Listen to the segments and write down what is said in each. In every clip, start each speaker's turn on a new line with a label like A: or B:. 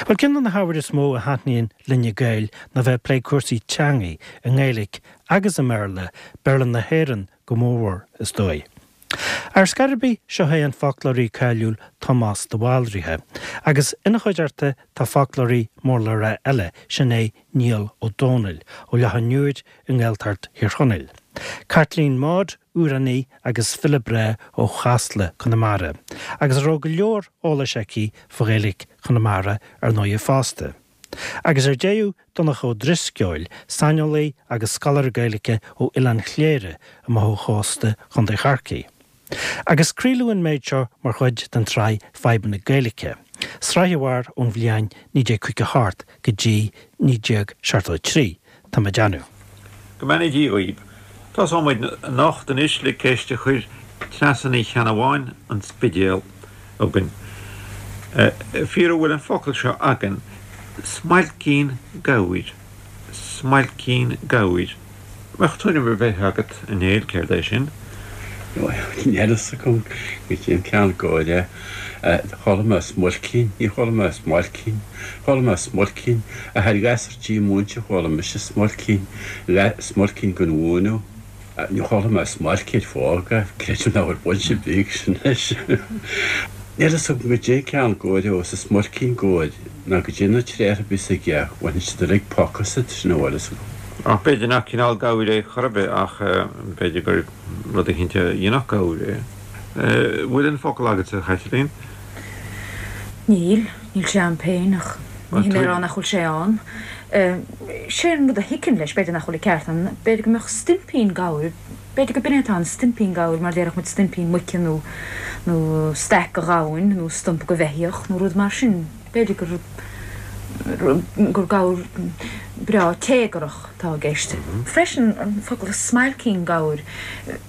A: Bhuel, ceann de na hábhair is mó a thaitníonn linne Gaeil ná bheith ag plé cúrsaí teangaí, i nGaeilic agus i mBéarla, Béarla na hÉireann go mórmhór, is dóigh. Ar scor ar bith, seo é an foclóirí cáiliúil Tomás de Bhaldraithe, agus ina chuideachta tá foclóirí mór le rá eile, sin é Niall Ó Dónaill, ó Loch an Iúir i nGaeltacht Thír Chonaill. Caitlín Maude, amhránaí agus file breá ó Chasla, Conamara, agus a raibh go leor eolais aici fá Ghaeilge Chonamara ar ndóighe fosta. Agus ar deireadh, Donncha Ó Drisceoil, saineolaí agus scoláire Gaeilge ó Oileán Chléire amach ó chósta Chontae Chorcaí. Agus craoladh an méid seo mar chuid den tsraith Fadhbanna Gaeilge, sraith a mhair ón bhliain 1958 go dtí 1973, tá mé ag déanamh.
B: Go mbeannaí Dia dhaoib. Tosóidh muid anocht anois le ceist a chuir Treasa Ní Cheannabháin, An Spidéal, chugainn. Fíor an bhfuil an focal seo againn, smailcín gabhair? Smailcín gabhair. Mbeadh tuairim ar bith agat, a Néill, céard é sin?
C: Níl a fhios agam goidé an ceann gabhair é. Chuala mé smuilcín, ní chuala mé smailcín. Chuala mé smuilcín, ach ar ghasúr díomúinte chuala mise smuilcín, smuilcín den mhúineadh. Ní chuala mé smailc ar fág, creidim nach bhfuil baint ar bith aige sin leis. Níl a fhios agam goidé an ceann gabhair é, is smuilcín gabhair ná goidé na tréithe a bhíos aige, bhaineann siad uilig poc asat, sin a bhfuil fhios agam.
B: Ach b'fhéidir nach cineál gabhair é chor ar bith ach b'fhéidir gur rud eicínt a dhéanfadh gabhar é. Bhfuil an focal agatsa, a Chaitlín?
D: Níl, níl sé a'm féin ach ní hé mé a rá nach bhfuil sé ann. Sé an rud a thiocfainn leis, b'fhéidir nach bhfuil an ceart a'm, b'fhéidir go mbeadh stuimpín gabhair, b'fhéidir go b'in é atá ann, stuimpín gabhair mar déarfadh muid stuimpín muice nó nó staic go ghamhain nó stumpa go bheithíoch nó rud mar sin. B'fhéidir gur gur gabhar breá téagarach atá i gceist. Freisin, an focal smailcín gabhair,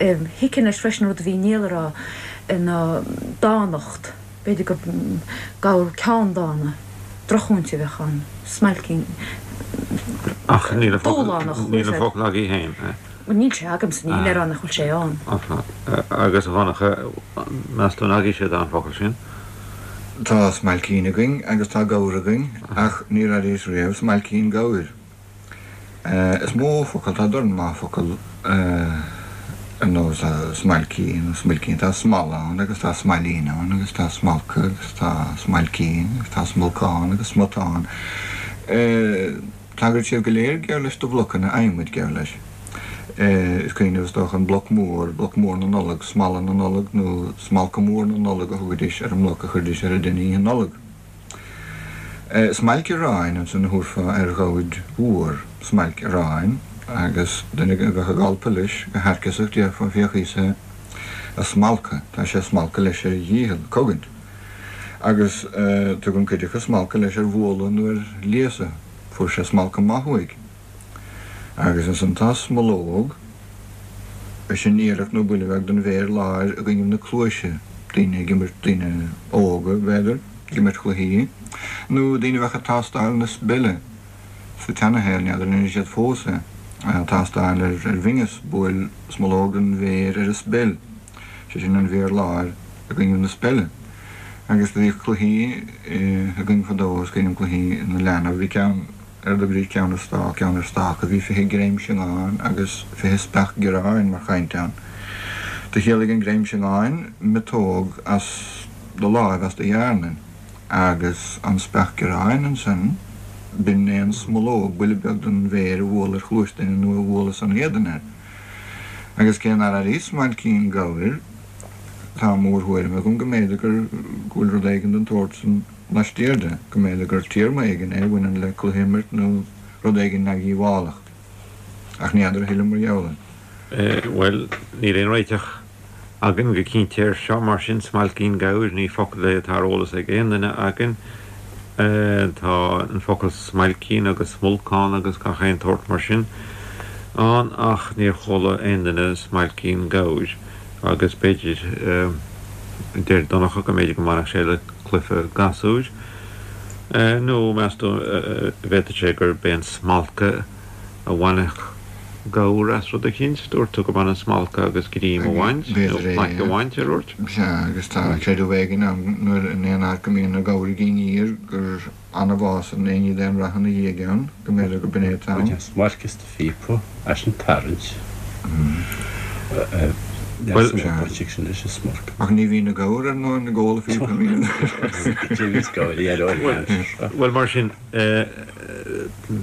D: thiocfainn leis freisin, rud a bhí Niall a rá, ná dánacht. B'fhéidir gur gabhar ceanndána, drochmhúinte a bheadh ann. Smailcín.
B: Ach níl an focal, níl an focal agaibh féin.
D: Bhuel, níl sé agamsa, ní hé mé a rá nach bhfuil sé ann.
B: Agus a Dhonncha, meas tú an agaibhse atá an focal sin?
E: Tá smailcín againn agus tá gabhar againn ach níor airíos riamh smailcín gabhair. Is mó focal, tá dorn maith focal ar nós smailcín nó smuilcín, tá smal ann agus tá smailín ann agus tá smalca agus tá smailcín agus tá smolcán agus smután. Tagraíonn siad go léir geall leis do bhlocanna adhmaid geall leis. Is cuimhin libh is dócha an bloc mór, bloc mór na Nollag, smala na Nollag nó smalca mór na Nollag a thugaidís ar an mbloc a chuiridís ar an dtine Oíche Nollag. Smailc aráin ansan a thabharfá ar ghabhair mhór, smailc aráin, agus duine a bheadh ag alpadh leis go hairceasach déarfá féach thíos é a smalcadh, tá sé ag smalcadh leis ar a dhícheall, cogaint. Agus tugann cuid acu smalcadh leis ar bhualadh nó ar léasadh. Fuair sé smalcadh maith uaidh. Agus ansan tá smológ, sin iarracht nó buille beag den mhéir láir i gcoinnibh na cluaise, daoine ag imirt, daoine óga, b'fhéidir, ag imirt chluichí, nó daoine a bheadh ag tástáil na speile sa tseanashaol, n'fheadar an ndéanann siad fós é, tástáil ar bhinneas, buail smológ den mhéir ar an speil. sé sin an mhéar láir i gcoinnibh na speile. Agus do bhíodh cluichí againn fadó, is cuimhin liom cluichí na leanbh, bhí ceann ar a dtugaidís ceann ar stác, ceann ar stáca, bhí 20 greim siongáin agus 20 speach gioráin mar chaint ann. Do chiallaigh an greim siongáin miotóg as do láimh, as do dhearnain, agus an speach gioráin ansan, b'in é an smológ, buille beag den mhéir a bhualadh ar chluais duine nó a bhualadh san éadan air. Agus cé nár airíos smailcín gabhair, tá mórthuairim agam go mb'fhéidir gur, go bhfuil rud éigin den tsórt san laistiar de, go mb'fhéidir gur téarma éigin é a bhaineann le cluiche a imirt nó rud éigin neamhdhíobhálach. Ach ní fheadar a thuilleadh mar gheall air.
B: Bhuel, níl aon réiteach againn go cinnte air seo, mar sin, smailcín gabhair, ní focal é atá ar eolas ag aon duine againn. Tá an focal smailcín agus smolcán agus gach aon tsórt mar sin ann ach níor chuala aon duine smailcín gabhair agus b'fhéidir, deir Donncha, go mb'fhéidir go mbainfeadh sé le cluiche gasúir. Nó meas tú, bhféadfadh sé gurb é an smalca a bhainfeadh. gabhar as rud eicínt. Dúirt tú go mbaineann smalcadh agus greim a bhaint, nó plaic a bhaint, ar dhúirt?
E: Sea, agus tá creideamh éigin ann nuair in aon áit go mbíonn na gabhair ag aniar gur annamh a fhásann aon ní d'aon rath ina dhiaidh ann, go mb'fhéidir go b'in é atá ann.
C: Baineann smailc as do phíopa, as an tarraingt. Níl baint ag sin leis an smailc.
E: Ach ní bhíonn na gabhair ar ndóigh ag ól a phíopa, an mbíonn?
B: Bhuel, mar sin,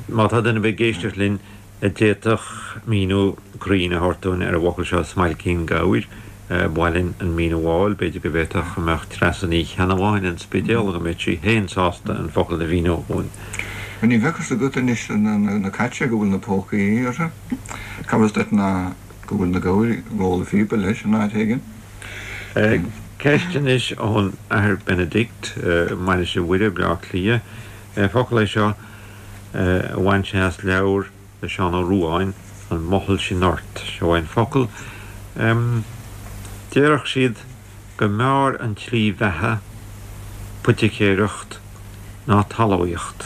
B: má tá duine ar bith ag éisteacht linn a d'fhéadfadh míniú cruinn a thabhairt dúinn ar an bhfocal seo smailcín gabhair, ba mhaith linn an míniú a fháil. B'fhéidir go bhféadfadh go mbeadh Treasa Ní Cheannabháin an Spidéal, go mbeadh sí féin sásta an focal a mhíniú dhúinn.
E: Ní bheadh fhios agat anois na cait go bhfuil na pócaí orthu. Cá bhfios duit ná go bhfuil na gabhair ag ól a phíopa leis in áit éigin.
B: Ceist anois ón Athair Benedict, Mainistir Mhuire, Baile Átha Cliath. Focal é seo a bhain sé as leabhar le Seán Ó Ruadháin, An Mothall Sin Ort. Seo é an focal. Déarfadh siad go mb'fhearr an tslí bheatha poiticéireacht ná talmhaíocht.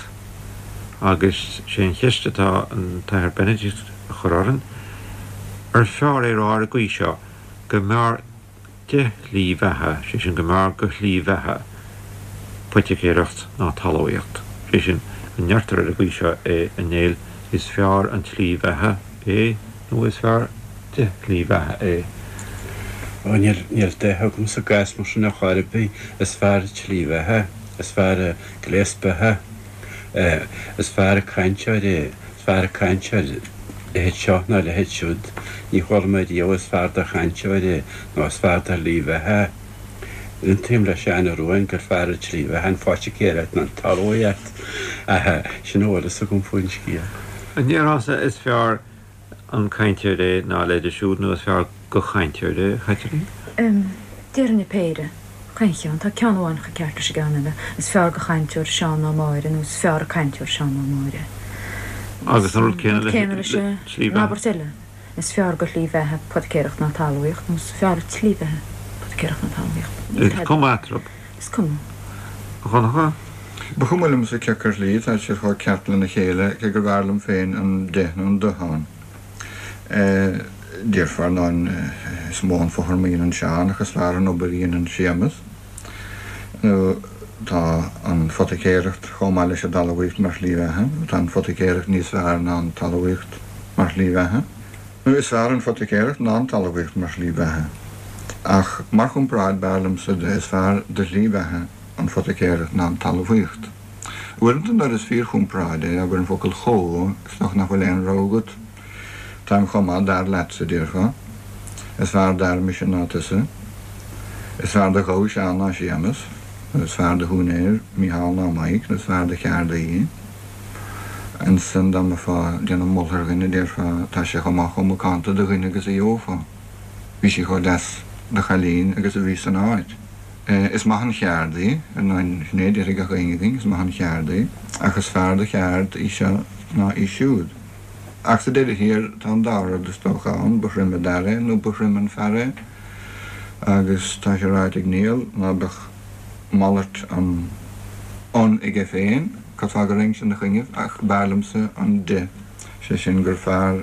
B: Agus sé an cheist atá an tAthair Benedict a chur orainn, ar fearr é a rá ar an gcaoi seo, go mb'fhearr de shlí bheatha, sé sin go mb'fhearr go shlí bheatha poiticéireacht ná talmhaíocht, sé sin, an ndeirtear ar an gcaoi seo é, a Néill, is fearr an tslí bheatha é nó is fearr de shlí bheatha é?
C: Ó, níl, níl de agam sa gcás mar sin ar chor ar bith, is fearr an tslí bheatha, is fearr an gléas beatha, is fearr an cainteoir é, is fearr an cainteoir leithéid seo ná leithéid siúd, ní chuala mé riamh is fearr do chainteoir é nó is fearr do shlí bheatha. Aontaím le Seán Ó Ruadháin gur fearr an tslí bheatha an phoiticéireacht ná an talmhaíocht, ach sin a bhfuil fhios agam faoin scéal.
B: An ndéarfása is fearr an cainteoir é ná a leithéide siúd nó is fearr go chainteoir é, a Chaitlín?
D: Déarfainn an péire. Chaon cheann. Tá ceann amháin chomh ceart leis an gceann eile. Is fearr go chainteoir Seán ná Máire nó is fearr an cainteoir Seán ná Máire.
B: Agus an rud céanna leis an tslí
D: bheatha. An abairt eile, is fearr go shlí bheatha poiticéireacht ná talmhaíocht nó is fearr an tslí bheatha poiticéireacht ná talmhaíocht.
B: Is cuma eatarthu.
D: Is cuma.
B: A Dhonncha?
E: Ba chuma liomsa cé acu ar shlí, tá siad chomh ceart lena chéile, cé gurbh fhearr liom féin an de nó an do ann. Déarfá, ar ndóin, is mó an fothram a dhéanann Seán ach is fearr an obair a dhéanann Séamus. Nó tá an phoiticéireacht chomh maith leis an dtalmhaíocht mar shlí bheatha, nó tá an phoiticéireacht níos fearr ná an talmhaíocht mar shlí bheatha. Nó is fearr an phoiticéireacht ná an talmhaíocht mar shlí bheatha. Ach mar chomparáid, b'fhearr liomsa de is fearr de shlí bheatha an phoiticéireacht ná an talmhaíocht. Uaireanta nuair is fíorchomparáid é, abair an focal chomh, is dócha nach bhfuil aon rogha agat. Táim chomh maith d'fhear leatsa, déarfá. Is fearr d'fhear mise ná tusa. Is fearr do ghabha Seán ná Séamus. Nó is fearr do shiúinéir Mícheál ná Maidhc, nó is fearr do cheardaí. Ansan dá mbeifeá ag déanamh moltha ar dhuine, déarfá, tá sé chomh maith chomh macánta de dhuine agus a gheofá. Bhí sí chomh deas de chailín agus a bhí san áit. Is maith an cheard í, ar ndóin, sin é a déarfaidh gach éinne againn, is maith an cheard í, ach is fearr de cheard í seo ná í siúd. Ach sa deireadh thiar, tá an dá rud is dócha ann, ba throime d'fhear é nó ba throime an fear é, agus tá sé ráite ag Niall ná beadh malairt an an aige féin, cad fáth go raghainn ina choinnibh, ach b'fhearr liomsa an de, sé sin gur fearr.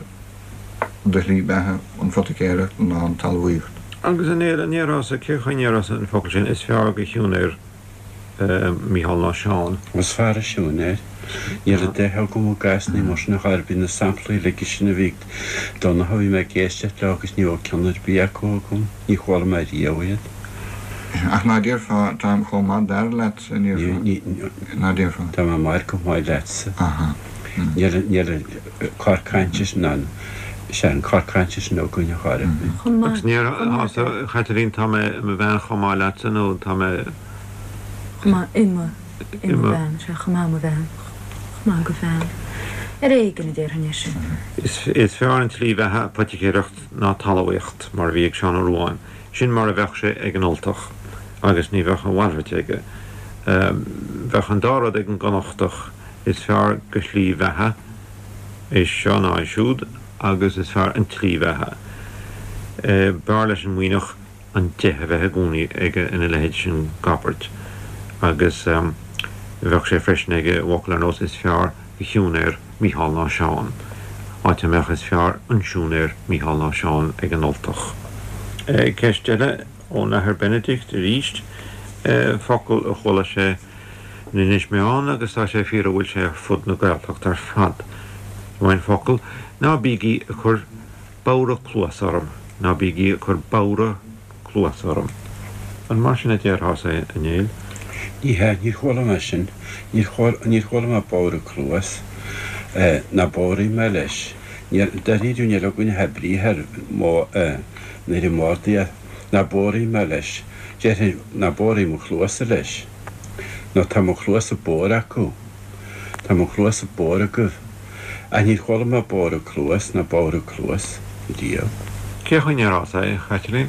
E: de shlí beatha an phoiticéireacht ná an talmhaíocht.
B: Agus a Néill, an ndéarfása, cén chaoi a ndéarfása an focal sin, is fearr go shiúinéir Mícheál ná Seán?
C: Is fearr a siúinéir. Níl an de agam i gcás ní mar sin a chor ar bith na samplaí uilig sin a bhí ag Donncha, bhí mé ag éisteacht leo agus ní raibh ceann ar bith acu agam, ní chuala mé riamh iad.
E: Ach ná déarfá, táim chomh maith d'fhear leatsa, an ndéarfá? Ná déarfá?
C: Tá mé mar chomh maith leatsa. Aha. Níl, níl. cor cainte sin ann. Sea, an cor cainte sin againn a chara.
D: Chomh maith.
B: Agus ní déarfása, a Chaitlín, tá mé i mo bhean chomh maith leatsa nó tá mé.
D: Chomh maith i mo, i mo bhean, sea, chomh maith i mo bhean, chomh maith go bhean. Ar éigean a déarfainn é sin.
B: Is fearr an tslí bheatha poiticéireacht ná talmhaíocht, mar a bhí ag Seán Ó Ruadháin. Sin mar a bheadh sé ag an Ultach, agus ní bheadh a mhalairt aige. Bheadh an dá rud ag an gConnachtach. Is fearr go shlí bheatha é seo ná é siúd agus is fearr an tslí bheatha. B'fhearr leis an Muimhneach an de a bheith i gcónaí aige ina leithéid sin d'abairt agus bheadh sé freisin aige i bhfocal ar nós is fearr go shiúinéir Mícheál ná Seán. Áit a mbeadh is fearr an siúinéir Mícheál ná Seán ag an Ultach. Ceist eile ón Athair Benedict arís, focal a chuala sé in Inis Meáin agus tá sé fíor a bhfuil sé ar fud na Gaeltachta ar fad. Seo an focal, ná bígí ag cur bodhradh cluas orm, ná bígí ag cur bodhradh cluas orm. An mar sin a déarfása é, a Néill?
C: Ní hea, níor chuala mé sin. Níor chuala mé bodhradh cluas. Ná bodhraigh mé leis. Dáiríre, níl againn ach briathar nuair a m'ordaithe. Ná bodhraigh mé leis. Déarfainn, ná bodhraigh mo chluasa leis. Nó tá mo chluasa bodhar acu. Tá mo chluasa bodhar agaibh. Ach níor chuala mé bodhradh cluas ná bodhradh cluas riamh.
B: Cén chaoi a ndéarfása é, a Chaitlín?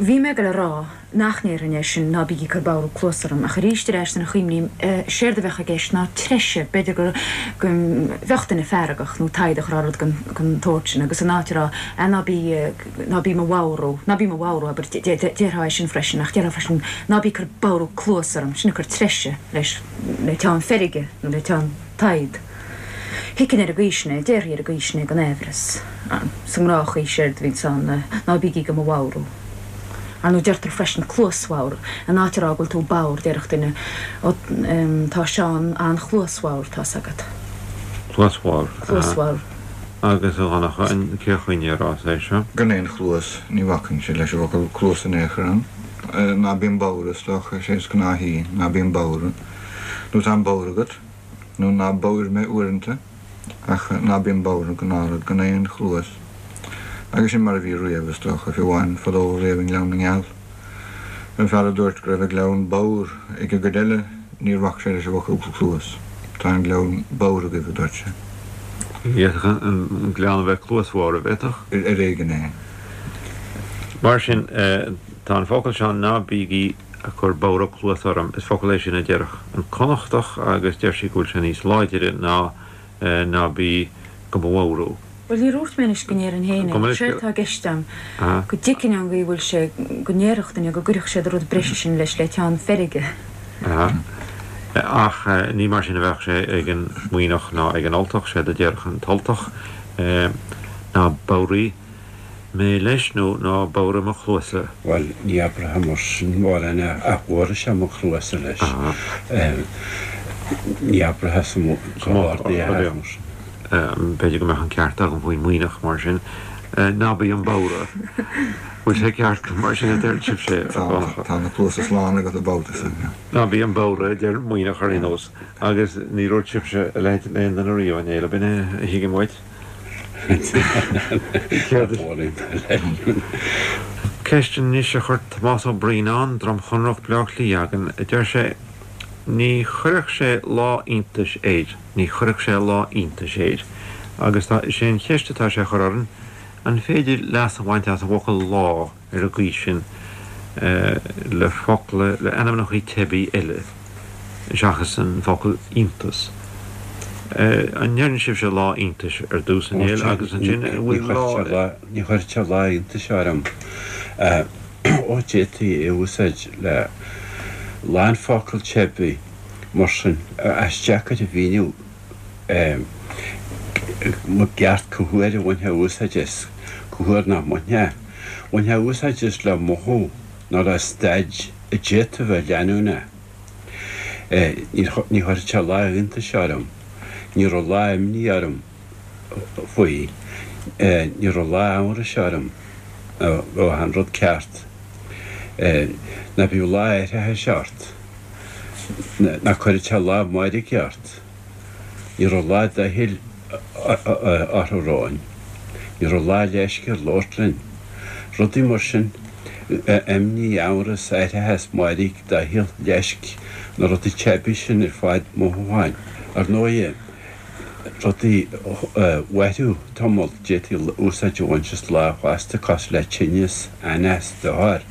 D: Bhí mé ag dul a rá nach ndéarfainn é sin, ná bígí ag cur bodhradh cluas orm, ach arís ar ais nuair a chuimhním, séard a bheadh i gceist ná treise, b'fhéidir go go mbeadh duine feargach nó taghdach a rá rud den den tsórt sin agus in áit a rá ah ná bí ná bí mo bhodhrú, ná bí mo bhodhrú abair, déarfá é sin freisin ach déarfá freisin ná bí ag cur bodhradh cluas orm, sin ag cur treise leis le teann feirge nó le teann. Tadhg. Thuigfinn ar an gcaoi sin é, déarfaí ar an gcaoi sin é gan aimhreas. Sa ngnáthchaoi séard a bhíonns ann ná bígí do mo bhodhrú. Ar ndóigh deirtear freisin cluasbhodhar, in áit a rá go bhfuil tú bodhar, déarfadh duine, ó tá Seán an-chluasbhodhar, tá's agat.
B: Cluasbhodhar. Cluasbhodhar. Agus a Dhonncha, cén chaoi a ndéarfása é seo?
E: Gan aon chluas, ní bhacainnse leis an bhfocal cluas in aon chor ann. Ná bím bodhar, is dócha, is é is gnáthaí, ná bím bodhar. Nó tá an bodhar agat. nó ná bodhair mé uaireanta, ach ná bím bodhar, gnáthrud, gan aon chluas. Agus sin mar a bhí riamh, is dócha, fiú amháin fadó riamh i nGleann na nGeal. An fear a dúirt go raibh an gleann bodhar ag an gcuid eile, níor bhac sé leis an bhfocal cluas. Tá an gleann bodhar agaibh, a dúirt sé.
B: D'fhéadfadh an gleann a bheith cluasbhodhar, an bhféadfadh?
E: Ar éigean é.
B: Mar sin, tá an focal seo, ná bígí. ag cur bodhradh cluas orm, is focal é sin a déarfadh an Connachtach agus deir sí go bhfuil sé níos láidire ná ná bí go mo bhodhrú.
D: Bhuel, níor dhúirt mé anois go ndéarfainn féin é, séard atá i gceist a'm, go dtuigfinn an gcaoi a bhfuil sé, go ndéarfadh duine go gcuirfeadh siad an rud breise sin leis le teann feirge.
B: Ach ní mar sin a bheadh sé ag an Muimhneach ná ag an Ultach, séard a déarfadh an tUltach ná bodhraigh mé leis nó ná bodhraigh mo chluasa.
C: Bhuel, ní abraithe mar sin mórán é, ach bhodhraigh sé mo chluasa leis. Ní abraithe sa mbord é mar
B: sin. B'fhéidir go mbeadh an ceart agam faoin Muimhneach mar sin. Ná bí 'om bodhradh. Bhfuil sé ceart go mar sin a deir sibhse, a
E: Dhonncha? Tá na cluasa slán agat an babhta
B: seo. Ná bí 'om bodhradh, a deir Muimhneach ar aon nós. Agus ní dúirt sibhse a leithéid le aon duine riamh, a Néill, ab in é a thuigim uait? Ceist anois a chuir Tomás Ó Braonáin, Droim Chonrach, Bleá Cliath againn. Deir sé, Ní chuirfeadh sé lá iontais air, ní chuirfeadh sé lá iontais air. Agus tá, is é an cheist atá sé a chur orainn, an féidir leas a bhaint as an bhfocal lá? ar an gcaoi sin le focla, le ainmneacha teibí eile seachas an focal iontas. An ndeireann sibhse lá iontais ar dtús, a Néill, agus ansin an bhfuil
C: lá. Ní chuirfeadh sé lá iontais orm. Ó, d'fhéadfaí é a úsáid le lán focal teibí mar sin, ach is deacair a mhíniú i gceart cá huair a bhainfeá úsáid as, cá huair nach mbainfeá. Bhainfeá úsáid as le mothú nó le staid a d'fhéadfadh a bheith leanúnach. Ní chuirfeadh sé lá iontais orm. Ní raibh lá imní orm faoi. Ní raibh lá amhrais orm go raibh an rud ceart. Ná bíodh lá aithreachais ort. Ná cuireadh sé lá mairge ort. Ní raibh lá doichill orthu romhainn. Ní raibh lá leisce air labhairt linn. Rudaí mar sin, imní, amhras, aithreachas, mairg, doicheall, leisc, na rudaí teibí sin ar fad, mothúcháin. Ar ndóighe, rudaí a mhairfeadh tamall, d'fhéadfaí úsáid a bhaint as lá fosta, cosúil le tinneas, anáis, dochar.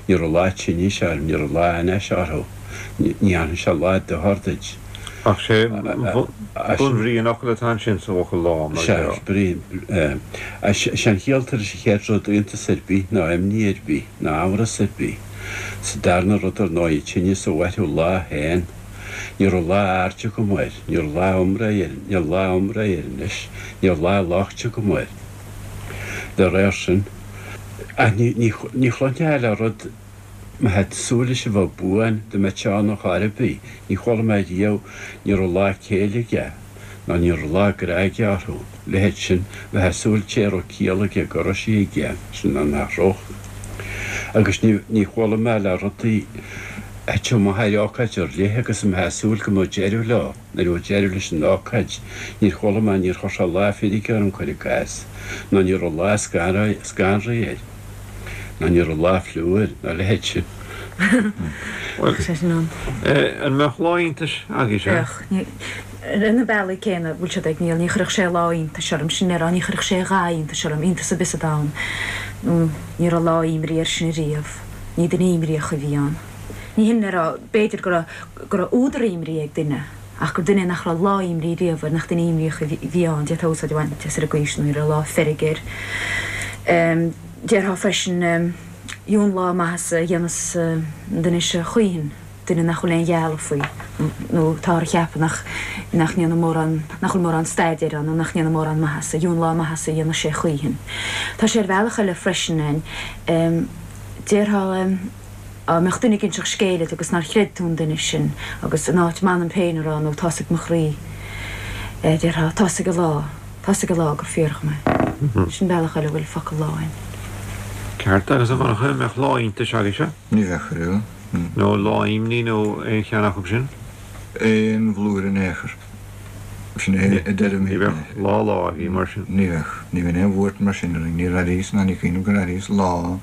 C: Ní raibh lá tinnis orm, ní raibh lá anáis orthu, ní dhéanfaidh sé lá dochair duit.
B: Ach sé bunbhrí an fhocail atá ansin sa bhfocal lá, mar
C: Sea, brí, sé an chiall tar éis an chéad rud, iontas ar bith, ná imní ar bith, ná amhras ar bith. Sa darna rud, ar ndóigh, tinneas a mhairfeadh lá féin. Ní raibh lá airde agam air, ní raibh lá iomrá air, níl lá iomrá air anois, níl lá loicht agam air. Dá réir sin, ach ní, ní, ní chluinfeá le rud, má tá tú ag súil leis a bheith buan, dá mbeadh sé ann ar chor ar bith, ní chuala mé riamh, ní raibh lá céille aige, ná ní raibh lá grá aige orthu, leithéid sin, bheifeá ag súil té a raibh ciall aige go raibh sí aige, sin ná nach raibh. Agus ní, ní chuala mé le rudaí a thiteadh amach ar ócáid ar leith agus a mbeifeá ag súil go mbeadh deireadh leo, nuair a bheadh deireadh leis an ócáid, níor chuala mé, níor chuir sé lá feirge orm, cuir i gcás, ná ní raibh lá scanraithe air, ná ní raibh lá fliú air, ná a leithéid sin.
B: Bhuel, an mbeadh lá iontais agaibhse?
D: Bheadh. Ar na bealaí céanna a bhfuil siad ag Niall, ní chuirfeadh sé lá iontais orm, sin le rá, ní chuirfeadh sé a dhath iontais orm, iontas ar bith sa domhan. Ní raibh lá imní air sin ariamh. Ní duine imníoch a bhí ann. Ní hin le rá, b'fhéidir, go raibh, go raibh údar imní ag duine, ach gur duine é nach raibh lá imní riamh air, nach duine imníoch a bhí ann. D'fhéadfá úsáid a bhaint as ar an gcaoi sin, ní raibh lá feirge air. Déarfá freisin, dheamhan lá maitheasa a dhéanfas an duine seo choíchin, duine nach bhfuil aon ghealladh faoi, nó táthar a cheapadh nach, nach ndéanann mórán, nach bhfuil mórán staidéir ann, nó nach ndéanann mórán maitheasa, dheamhan lá maitheasa a dhéanfas sé choíchin. Tá sé ar bhealach eile freisin, Déarfá dá mbeadh duine ag inseacht scéil duit agus nár chreid tú an duine sin agus in áit m'anam féin a rá nó tá's ag mo chroí, déarfá tá's ag an lá, tá's ag an lá gur fíor dhom é. Sin bealach eile a bhfuil focal lá ann.
B: Ceart, agus a Dhonncha, an mbeadh lá iontais agaibhse?
E: Ní bheadh ariamh.
B: Nó lá imní nó aon cheann acu sin?
E: Aon bhlúire in aon chor. Sin é a deirimid.
B: Ní bheadh lá lá agaibh mar sin.
E: Ní bheadh. Ní bhíonn aon bhuairt mar sin orainn. Níor airíos ná ní cuimhin liom gur airíos lá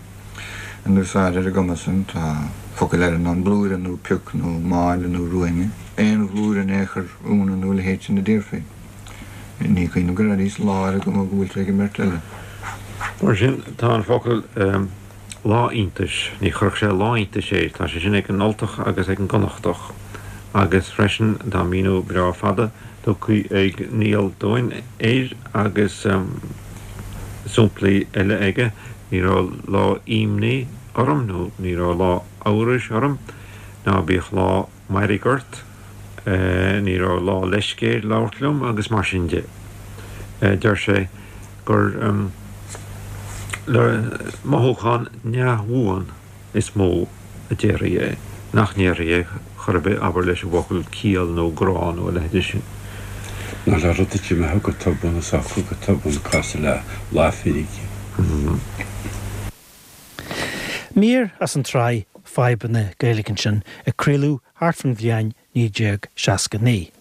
E: in úsáid ar an gcuma san. Tá focail eile ann, blúire nó pioc nó máille nó ruainne. Aon bhlúire in aon chor, ionadh nó a leithéid sin a déarfaí. Ní cuimhin liom gur airíos lá ar an gcuma go bhfuil sé ag an mbeirt eile.
B: Mar sin, tá an focal lá iontais, ní chuirfeadh sé lá iontais air, tá sé sin ag an Ultach agus ag an gConnachtach. Agus freisin tá míniú breá fada tugtha ag Niall dúinn air agus samplaí eile aige, ní raibh lá imní orm nó ní raibh lá amhrais orm, ná bíodh lá mairg ort, ní raibh lá leisce air labhairt liom agus mar sin de. Deir sé gur le mothúchán neamhbhuan is mó a déarfaí é, nach ndéarfaí é chor ar bith, abair, leis an bhfocal ciall nó grá nó a leithéide sin.
C: Ná le rud a d'imeodh go tobann is socródh go tobann cosúil le lá feirge.
A: Mír as an tsraith Fadhbanna Gaeilge ansin a craoladh thart faoin bhliain 1969.